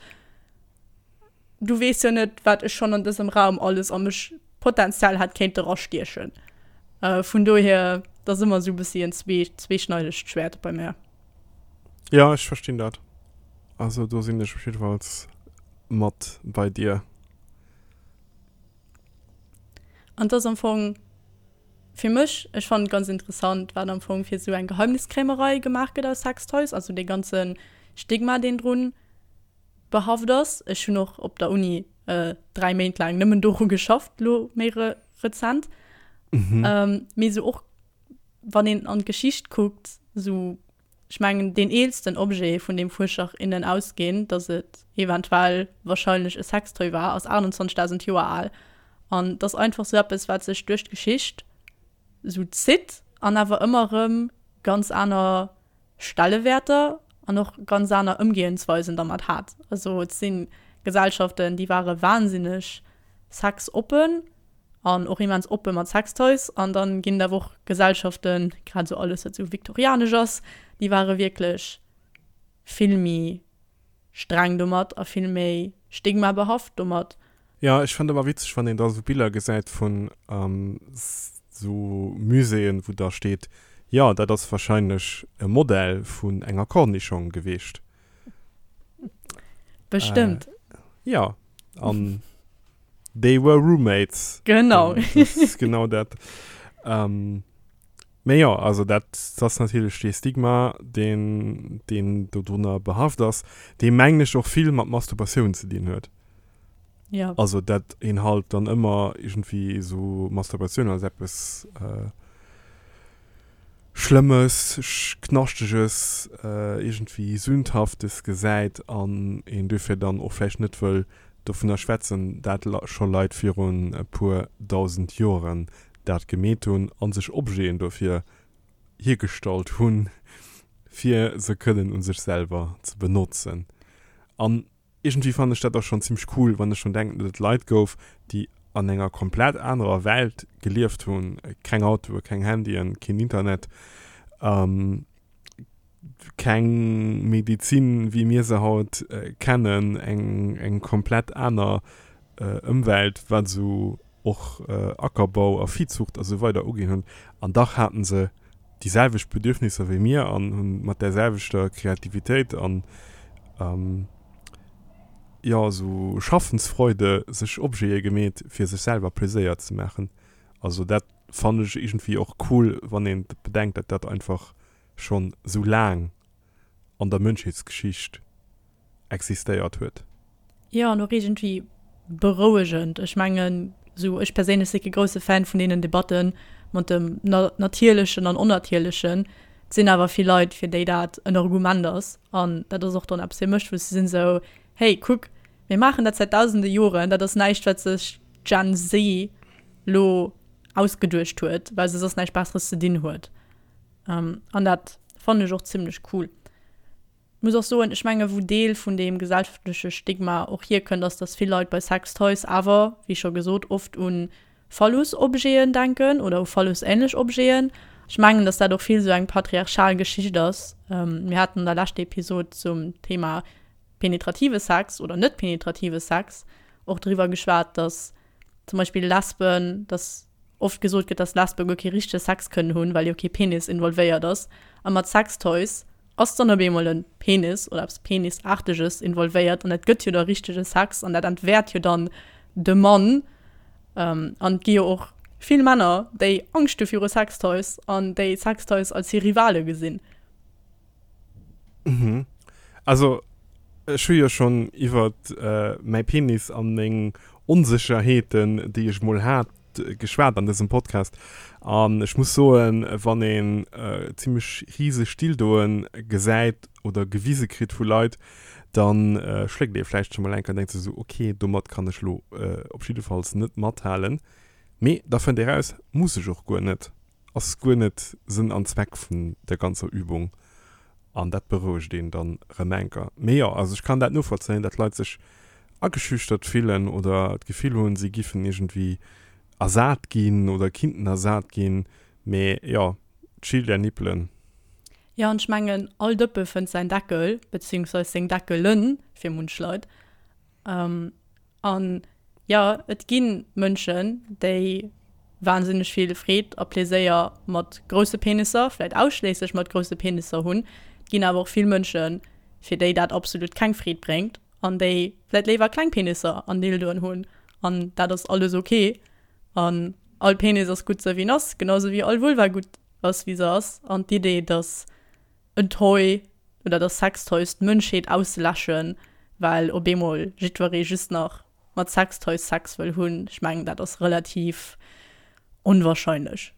S1: Du weess jo net, wat ech schonn an dësem Raum alles a mech potenziell hätt kéinte rastiechen. Vun dohier, dat ass ëmmer esou e bëssi en zwee, zweeschneidegt Schwäert bei mär.
S2: Jo, ech verstinn dat. Also do sinn ech op jiddefalls mat bei dir.
S1: An et ass am Fong fir mech, ech fannen et ganz interessant, wat am Fong fir esou eng Geheimniskrämerei gemaach gëtt aus Sextoys, also dee ganze Stigma, deen drun behaft ass. Ech hunn och op der Uni 3 Méint laang nëmmen doru geschafft, lo méi re rezent. Mhm. Ähm, mee sou och wann een an d'Geschicht kuckt, sou ech mengen deen eelsten Objet vun deem Fuerscher innen ausginn, datt et eventuell wahrscheinlech e Sextoy war, ass 28.000 Joer al. An et ass einfach sou eppes wat sech duerch d'Geschicht sou zitt an awer ëmmer erëm ganz aner Stellewäerter an och ganz aner Ëmgehensweisen dermat hat. Also et si Gesellschaften, déi ware wahnsinneg sexoppen an och immens oppe mat Sextoys an dann ginn et awer och Gesellschaften, grad esou alles wat esou viktorianesch ass, déi ware wierklech vill méi streng domat a vill méi. Stigma behaft domat.
S2: Jo, ech fannen ëmmer witzeg, wann een da sou Biller gesäit vun sou Muséeën, wou da steet, jo, dat ass wahrscheinlech e Modell vun enger Cornischong geweecht.
S1: Bestëmmt.
S2: Jo, an they were roommates.
S1: Genau.
S2: Dat ass genau dat. Mee jo, also dat ass natierlech dee Stigma, deen, deen dodrunner behaft ass, dee mengen ech och vill mat Masturbatioun ze dinn huet.
S1: Ja.
S2: Also dat een halt dann ëmmer iergendwéi esou Masturbatioun als eppes Schlëmmes, Knaschteges, iergendwéi Sündhaftes gesäit an een duerfir dann och vläicht net wëll dovunner schwätzen, dat scho Leit virun e puer dausend Joren dat gemeet hunn a sech Objeten dofir hiergestallt hunn, fir se kënnen u sech selwer ze benotzen. An iergendwéi fannen ech dat och schonn zimmlech cool, wann ech drun denken, datt et Leit gouf, déi an enger komplett anerer Welt gelieft hunn, keng Autoe, keng Handyen, keen Internet, keng Medizin wéi mir se haut kennen, eng eng komplett aner Ëmwelt wat esou och Ackerbau a Viehzucht a sou weider uginn hunn, an dach haten se déi selwecht Bedürfnisser wéi mir an hunn mat där selwechter Kreativitéit an jo esou Schaffensfreude sech Objete gemeet fir sech selwer Pleséier ze maachen. Also dat fannen ech iergendwéi och cool wann een bedenkt dat dat einfach schonn sou laang an der Mënschheetsgeschicht existéiert huet.
S1: Jo, an och iergendwéi berouegend. Ech mengen, sou ech perséinlech si kee grousse Fan vun deenen Debatten mat dem Natierlechen an Onnatierlechen. Et sinn awer vill Leit, fir déi dat en Argument ass. An dat ass och dann eppes fir mech, wou se sinn esou, Hey, kuck, mir maachen dat säit dausende Joren, dat ass näischt, wat sech d'Gen Z lo ausgeduecht huet, well se soss näischt Besseres ze dinn huet. An dat fannen ech och zimlech cool. Muss och soen, ech menge wou Deel vun deem gesellschaftleche Stigma och hierkënnt, ass, dass vill Leit bei Sextoys awer, wéi scho gesot, oft u Phallus-Objeten denken oder u Phallus-änlech Objeten. Ech mengen, dass dat och vill esou eng patriarchal Geschicht ass. Mir haten an der leschter Episod zum Thema penetrative Sex oder net penetrative Sex och driwwer geschwat, dass zum Beispill Lesben, dass oft gesot gëtt, dass Lesbe guer kee richtege Sex kënnen hunn, well jo kee Penis involvéiert ass. A mat Sextoys ass dann op eemol e Penis oder eppes Penisaarteges involvéiert an dat gëtt jo da richtege Sex an dat entwäert jo dann de Mann. An et gi jo och vill Männer, déi Angscht hu viru Sextoys an déi Sextoys als hir Rivale gesinn.
S2: Mhm. Also ech hu jo schonn iwwert mäi Penis an meng Onsécherheeten, déi ech mol hat, geschwat an dësem Podcast. An ech muss soen, wann een zimmlech riseg Dildoen gesäit oder gewise kritt vu Leit, da schléckt ee vläicht scho mol eng Kéier an denkt sech esou, ok, domat kann ech lo op jiddefalls net mathalen. Mee da fënnt ee raus, muss ech och guer net. Ass guer net Sënn an Zweck vun der ganzer Übung an dat berouegt een dann rem enker. Mee jo, also ech kann dat novollzéien, dat Leit sech ageschüchtert fillen oder d'Gefill hunn, si giffen iergendwéi ersat ginn oder kinnten ersat ginn. Mee jo, chill där Nippelen.
S1: Jo, an ech mengen, all Dëppe fënnt säin Deckel, beziehungsweis seng Deckelen fir munch Leit. An jo, et gi Mënschen, déi wahnsinneg vill Freed a Pleséier mat grousse Penisser, vläit ausschléisslech mat grousse Penisser hunn. Et ginn awer och vill Mënschen, fir déi dat absolut keng Freed bréngt an déi vläit léiwer kleng Penisser an Dildoen hunn. An dat ass alles ok. An all Penis ass gutt sou wéi en ass, genau sou wéi all Vulva gutt ass wéi se ass. An d'Idee, dass en Toy oder dass Sextoys d'Mënschheet ausläschen, well op eemol jiddweree just nach mat Sextoys Sex wëll hunn, ech mengen dat ass relativ onwahrscheinlech.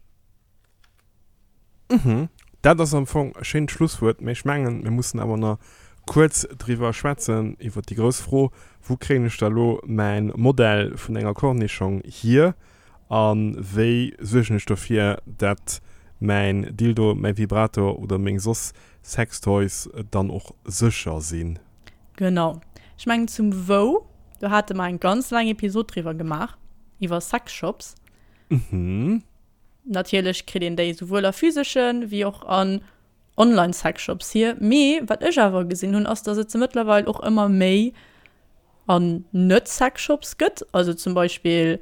S2: Mhm. Dat ass am Fong e schéint Schlusswuert, mee ech mengen, mir mussen awer nach kuerz driwwer schwätzen, iwwer déi grouss Fro, Wou kréien ech da lo mäin Modell vun enger Cornischong hier? A wéi suergen ech dofir, dat mäin Dildo, mäi Vibrator oder meng soss Sextoys dann och sécher sinn?
S1: Genau. Ech mengen zum Wou, do hate mer eng ganz laang Episod driwwer gemaach, iwwer Sexshops.
S2: Mhm.
S1: Natierlech kritt een déi souwuel a physeschen, wéi och an Online-Sexshops hier. Mee wat ech awer gesinn hunn, ass, dass et se mëttlerweil och ëmmer méi. An Net-Sexshops gëtt. Also zum Beispill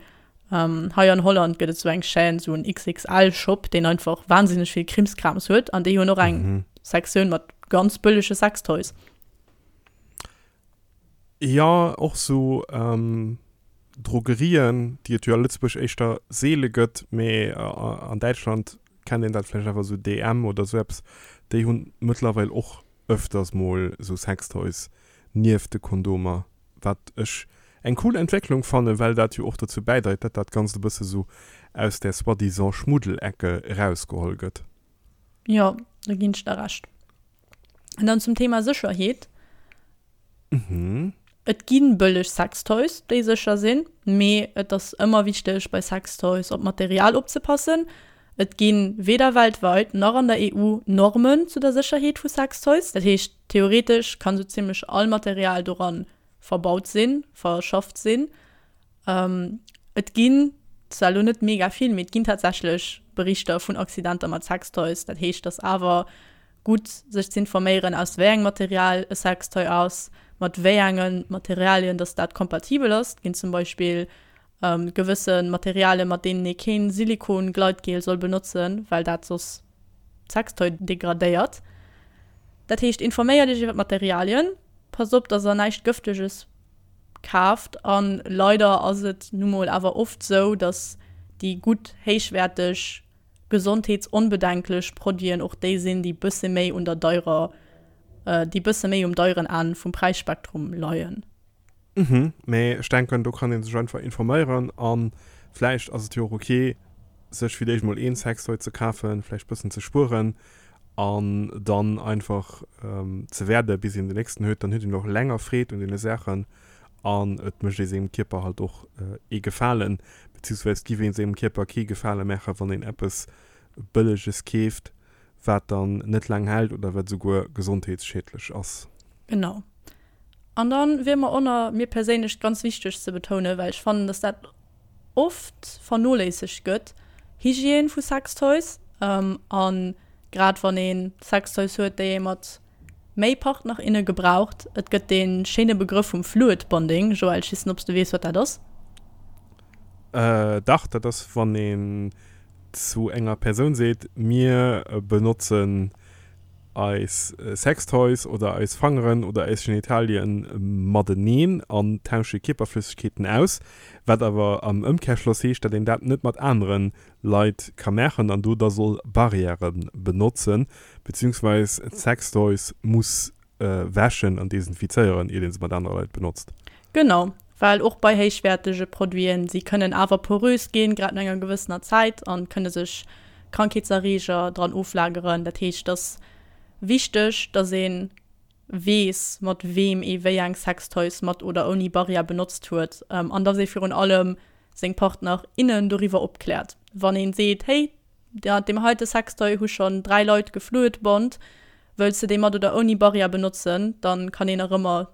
S1: hei an Holland gëtt et sou eng Chaîne, sou en XXL-Shop, deen einfach wahnsinneg vill Krimskrams huet. An déi hunn och eng Sektioun mat ganz bëllege Sextoys.
S2: Jo, och sou Drogerien, déi et jo a Lëtzebuerg éischter seele gëtt, mee an Däitschland kennt een dat vläicht awer, sou DM oder sou eppes, déi hunn mëttlerweil och ëfters mol sou Sextoys nieft de Kondomer, wat ech eng cool Entwécklung fannen, well dat jo och dozou bäidreit, dat dat Ganzt e bësse sou aus där soi-disant Schmuddelecke erausgeholl gëtt.
S1: Jo, do ginn ech der Recht. An dann zum Thema Sécherheet.
S2: Mhm.
S1: Et gi bëlleg Sextoys, déi sécher sinn, mee et ass ëmmer wichteg bei Sextoys op d'Material opzepassen. Et gi weder weltweit nach an der EU Normen zu der Sécherheet vu Sextoys. Dat heescht, theoretesch kann sou zimmlech all Material doran verbaut sinn, verschafft sinn. Et ginn zwar elo net mega vill, mee et ginn tatsächlech Berichter vun Accidenter mat Sextoys. Dat heescht, et ass awer gutt sech z'informéieren, aus wéi engem Material e Sextoy ass, mat wéi enge Materialien dass dat kompatibel ass. Et ginn zum Beispill gewësse Materialien, mat deenen ee keen Silikon-Gleitgel soll benotzen, well dat soss d'Sextoy degradéiert. Dat heescht, informéiert iech iwwer d'Materialien, passt op, dass der näischt Gëfteges kaaft. A leider ass et nu mol awer oft sou, dass déi gutt, héichwäerteg, gesondheetsonbedenklech Produiten och déi sinn, déi bësse méi un der deirer, déi bësse méi um deieren Enn vum Präisspektrum leien.
S2: Mhm, mee ech denken do kann een sech einfach informéieren an vläicht ass et jo och ok sech fir d'éischt mol een Sextoy ze kafen, vläicht bëssen ze spueren an dann einfach ze wäerden bis een den nächsten huet, dann huet een och länger Freed un deene Saachen an et mécht ee sengem Kierper halt och ee Gefalen, beziehungsweise giff ee sengem Kierper kee Gefale maachen wann een eppes bëlleges keeft wat dann net laang hält oder wat esouguer gesondheetsschiedlech ass.
S1: Genau. An dann wier mer och mir perséinlech ganz wichteg ze betounen, well ech fannen, dass dat oft vernoléissegt gëtt, Hygiène vu Sextoys. A grad wann ee Sextoys huet, déi ee mat méi Partner, inne gebraucht. Et gëtt dee schéine Begrëff vum Fluid Bonding. Joël, ech weess net, ob s de weess, wat dat ass.
S2: Dach, dat ass, wann een zu enger Persoun seet, mir benotzen eis Sextoys oder eis Fangeren oder eis Genitalien mateneen an tausche Kierperflëssegkeeten aus, wat awer am Ëmkehrschloss heescht, dat een dat net mat anere Leit ka maachen an do da soll Barrièrë benotzen, beziehungsweis d'Sextoys muss wäschen an desinfizéieren, iert ee se mat anere Leit benotzt.
S1: Genau, well och bei héichwäertege Produiten, si kënnen awer porös ginn, grad no enger gewëssener Zäit, a kënne sech Krankheetserreeger dran oflageren. Dat heescht, et ass wichteg, dass ee weess, mat weem ee wéi eng Sextoys mat oder ouni Barrière benotzt huet an dass ee virun allem seng Partner, innen doriwwer opkläert. Wann ee seet, Hey, mat deem heite Sextoy hu schonn 3 Leit gefluidbond, wëlls de dee mat oder ouni Barrière benotzen? Dann kann een nach ëmmer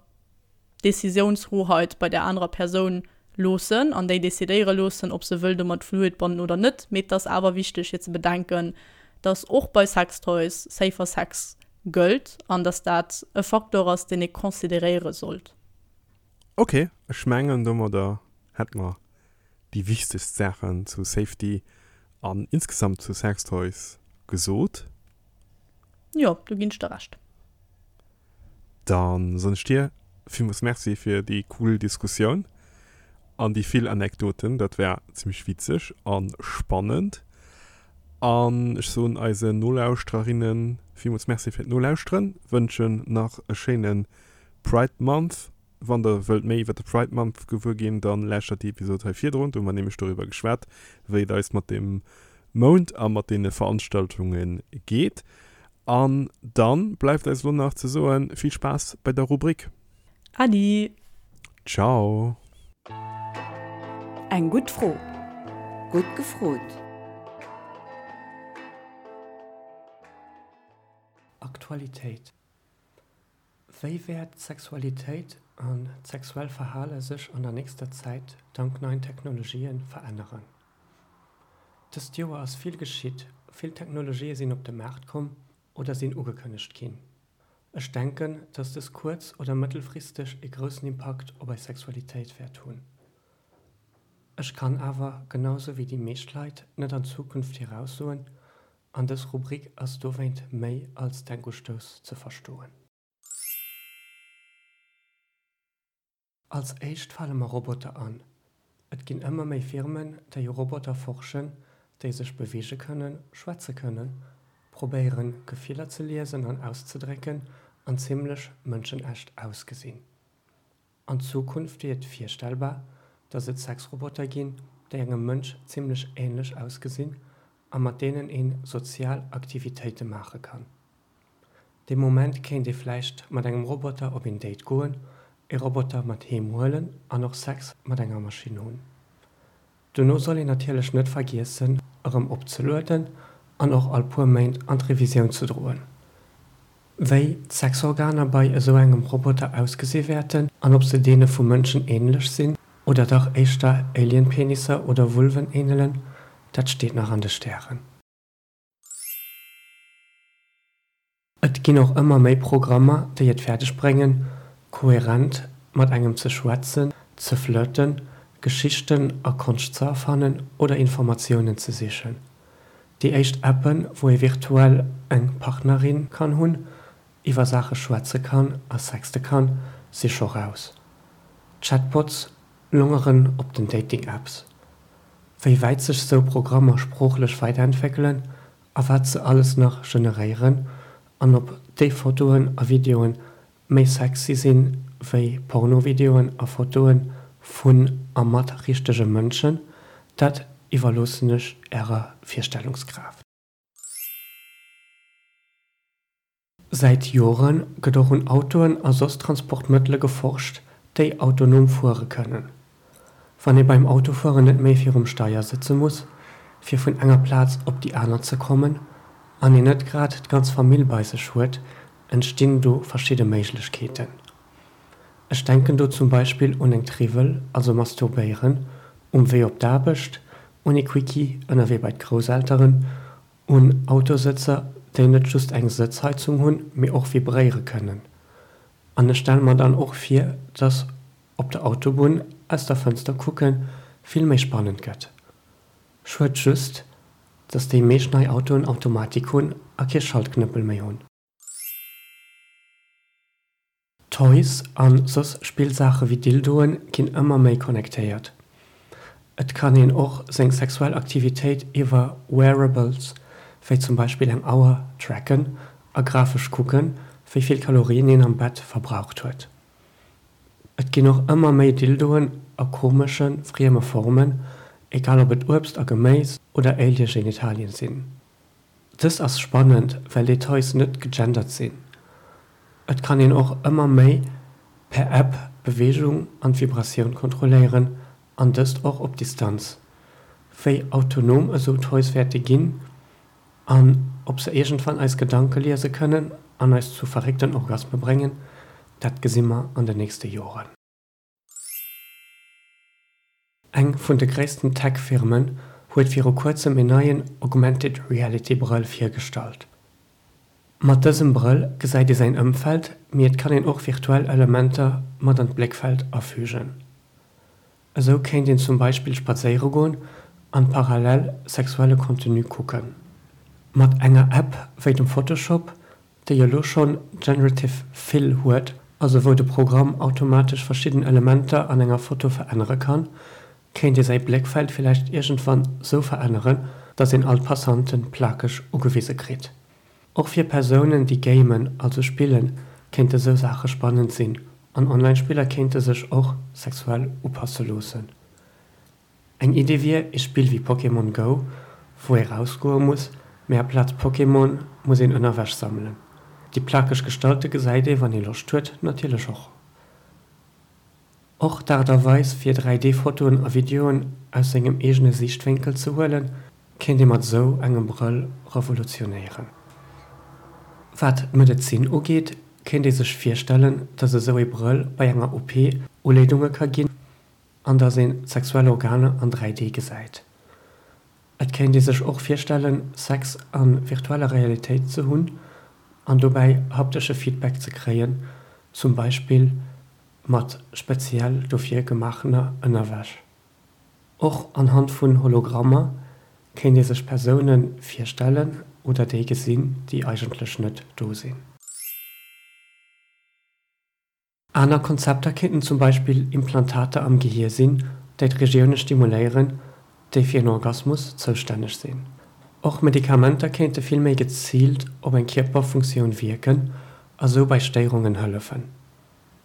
S1: d'Decisiounshoheit bei der anerer Persoun loossen an déi decidéiere loossen, ob se wëll domat fluidbonden oder net. Mee et ass awer wichteg fir ze bedenken, dass och bei Sextoys safer Sex gëllt an dass dat e Faktor ass, deen ee consideréiere sollt.
S2: Ok, ech mengen domadder hätt mer déi wichtegst Saachen zu Safety an insgesamt zu Sextoys gesot.
S1: Jo, do ginn ech der Recht.
S2: Dann soen ech dir villmools Merci fir déi cool Diskussioun an déi vill Anekdoten. Dat war zimmlech witzeg a spannend. An ech soen eisen Nolauschtererinnen villmools Merci fir d'Nolauschteren, wënschen nach e schéine Pride Month. Wann der wëllt méi iwwer de Pride Month gewuer ginn, dann lauschtert déi Episod hei virdrun. Do hu mer nämlech doriwwer geschwat, wéi et eis mat dem Mount a mat deene Veranstaltunge geet. An dann bleift eis elo nach ze soen, vill Spaass bei der Rubrik.
S1: Adi!
S2: Ciao!
S3: Eng gutt Fro. Gutt gefrot.
S4: Aktualitéit Wéi wäert d'Sexualitéit an d'sexuell Verhale sech an der nächster Zäit dank neien Technologien veränneren? Dëst Joer ass vill geschitt, vill Technologië sinn op de Maart komm oder sinn ugekënnegt ginn. Ech denken, dass dës kuerz oder mëttelfristeg ee groussen Impakt op eis Sexualitéit wäert hunn. Ech kann awer, genau sou wéi déi meescht Leit, net an d'Zukunft viraussoen an dës Rubrik ass dowéint méi als Denkustouss ze verstoen. Als éischt fale mer Roboter an. Et ginn ëmmer méi Firmen, déi u Roboter forschen, déi sech beweege kënnen, schwätze kënnen, probéieren, Gefiller ze liesen an auszedrécken an zimmlech mënschenecht ausgesinn. An Zukunft wier et virstellbar, dass et Sexroboter ginn, déi engem Mënsch zimmlech änlech ausgesinn a mat deenen een sozial Aktivitéite maache kann. Dee Moment kéint ee vläicht mat engem Roboter op een Date goen, ee Roboter mat heem huelen an och Sex mat enger Maschinn hunn. Dono soll een natierlech net vergiessen erëm opzelueden an och all puer Méint an d'Revisioun ze droen. Wéi d'Sexorganer bei esou engem Roboter ausgesi wäerten an ob se deene vu Mënschen änlech sinn oder dach éischter Alien-Penisser oder Vulven änelen, dat steet nach an de Stären. Et ginn och ëmmer méi Programmer, déi et fäerdeg bréngen, koherent mat engem ze schwätzen, ze flirten, Geschichten a Konscht ze erfannen oder Informatiounen ze sichen. Déi éischt Appen, wou ee virtuell eng Partnerin kann hunn, iwwer Saache schwätze kann a sexte kann, si scho raus. Chatbots longeren op den Dating-Apps. Wéi wäit sech sou Programmer sproochlech weiderentwéckelen a wat se alles nach generéieren an ob déi Fotoen a Videoen méi sexy sinn wéi Pornovideoen a Fotoen vun a mat richtege Mënschen, dat iwwerloossen ech ärer Virstellungskraaft. Säit Jore gëtt och un Autoen a soss Transportmëttele geforscht, déi autonom fuere kënnen. Wann ee beim Autofueren net méi virum Steier sëtze muss, fir vun enger Plaz op déi aner ze kommen, an een net grad d'ganz Famill bei sech huet, entstinn do verschidde Méiglechkeeten. Ech denken do zum Beispill un eng Triwwel, also masturbéieren um Wee op d'Aarbecht, un ee Quickie ënnerwee bei d'Grousselteren, Un Autosëtzer, déi net just eng Sëtzheizung hunn, mee och vibréiere kënnen. An ech stelle mer dann och vir, dass op der Autobunn aus der Fënster kucke vill méi spannend gëtt. Schued just, dass déi meescht nei Autoen Automatik hunn a kee Schaltknëppel méi hunn. Toys an soss Spillsaache wéi Dildoen ginn ëmmer méi connectéiert. Et kann een och seng sexuell Aktivitéit iwwer Wearables, wéi zum Beispill eng Auer, tracken a grafesch kucken, wéi vill Kalorien een am Bett verbraucht huet. Et ginn och ëmmer méi Dildoen a komesche, frieme Formen, egal ob et Uebst a Geméis oder Alien-Genitalien sinn. Dëst ass spannend, well déi Toys net gegendert sinn. Et kann een och ëmmer méi per App d'Beweegung an d'Vibratioun kontrolléieren an dëst och op Distanz. Wéi autonom esou Toys wäerte ginn an ob se iergendwann eis Gedanke liese kënnen an eis zu verréckten Orgasme bréngen, dat gesi mer an de nächste Joren. Eng vun de gréissten Tech-Firmen huet viru kuerzem een neien Augmented Reality Brëll virgestallt. Mat dësem Brëll gesäit ee säin Ëmfeld, mee et kann een och virtuell Elementer mat an d'Bléckfeld afügen. Esou kéint een zum Beispill spadséiere goen an parallel sexuelle Contenu kucken. Mat enger App wéi dem Photoshop déi elo schonn Generative Fill huet, also wou de Programm automatesch verschidden Elementer an enger Foto verännere kann, kéint ee säi Bléckfeld villäicht iergendwann sou veränneren, dass een all d'Passanten plakeg ugewise kritt. Och fir Persounen déi gamen, also spillen, kéinte sou Saache spannend sinn an Online-Spiller kéinte sech och sexuell upasse loossen. Eng Idee wier ee Spill wéi Pokémon Go, wou ee rausgoe muss, mee aplaz Pokémon muss een Ënnerwäsch sammelen. Déi plakeg Gestalte gesäit ee, wann ee Loscht huet, natierlech och. Och d'Aart a Weis fir 3D Fotoen a Videoen aus sengem eegene Siichtwénkel ze huelen, kéint ee mat esou engem Brëll revolutionéieren. Wat d'Medezin ugeet, kéint ee sech virstellen, datt esou ee Brëll bei enger OP Uleedunge ka ginn, an dass een d'sexuell Organer an 3D gesäit. Et kéint ee sech och virstellen, Sex a virtueller Realitéit ze hunn. an dobäi haptesche Feedback ze kréien, zum Beispill mat speziell dofir gemaachener Ënnerwäsch. Och anhand vun Hologrammer kéint ee sech Persoune virstellen oder déi gesinn, déi eigentlech net do sinn. Aner Konzepter kéinten zum Beispill Implantater am Gehier sinn, déi d'Regioune stimuléieren, déi fir en Orgasmus zoustänneg sinn. Och Medikamenter kéinte vill méi geziilt op eng Kierperfunktioun wierken a sou bei Stéierungen hëllefen.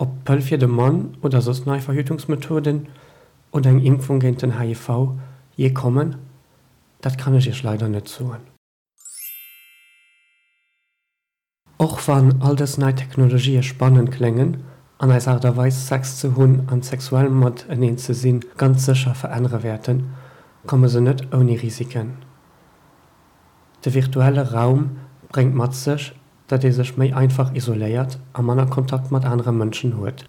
S4: Ob d'Pëll fir de Mann oder soss nei Verhütungsmethoden oder eng Impfung géint den HIV jee kommen, dat kann ech iech leider net soen. Och wann all dës nei Technologië spannend kléngen an eis Aart a Weis Sex ze hunn an sexuell mateneen ze sinn ganz sécher verännere wäerten, komme se net ouni Risiken. De virtuelle Raum bréngt mat sech, datt ee sech méi einfach isoléiert a manner Kontakt mat anere Mënschen huet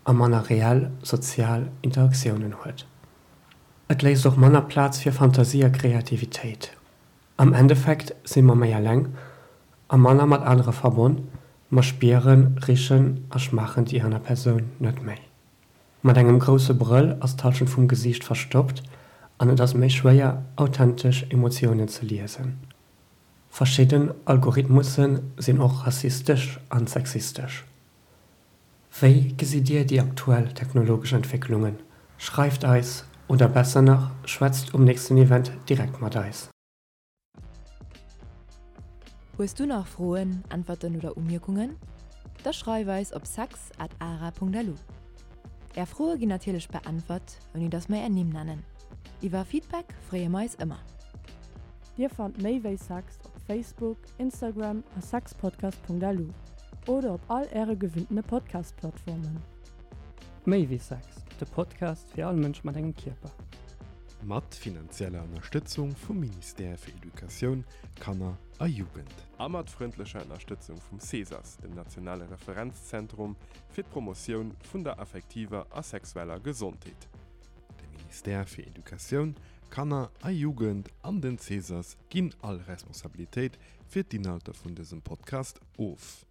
S4: a manner reell sozial Interaktiounen huet. Et léisst och manner Plaz fir Fantasie a Kreativitéit. Am Endeffekt si mer méi eleng a manner mat anere verbonn, mer spieren, richen a schmaachen déi aner Persoun net méi. Mat engem grousse Brëll ass d'Hallschent vum Gesiicht verstoppt an et ass méi schwéier, authentesch Emotiounen ze liesen. Verschidden Algorithmusse sinn och rassistesch an sexistesch. Wéi gesitt Dir déi aktuell technologesch Entwécklungen? Schreift eis oder besser nach, schwätzt um nächsten Event direkt mat eis.
S3: Hues du nach Froen, Äntwerten oder Umierkungen? Da schreif eis op sex at ara.lu. Är Froe ginn natierlech beäntwert, ouni dass mer är Nimm nennen. Iwwer Feedback freeë mer eis ëmmer.
S1: Dir fannt méi wéi Sex op Facebook, Instagram a sexpodcast.lu oder op all äre gewinntene Podcast-Plattformen.
S4: Méi wéi Sex, de Podcast fir all Mënsch mat engem Kierper.
S2: Mat finanzieller Ënnerstëtzung vum Ministère fir Educatioun, Kanner a Jugend. A mat frëndlecher Ënnerstëtzung vum CESAS, dem nationale Referenzzentrum fir d'Promotioun vun der affektiver a sexueller Gesondheet. De Ministère fir Educatioun, Kanner a Jugend an den CESAS ginn all Responsabilitéit fir d'Inhalter vun dësem Podcast of.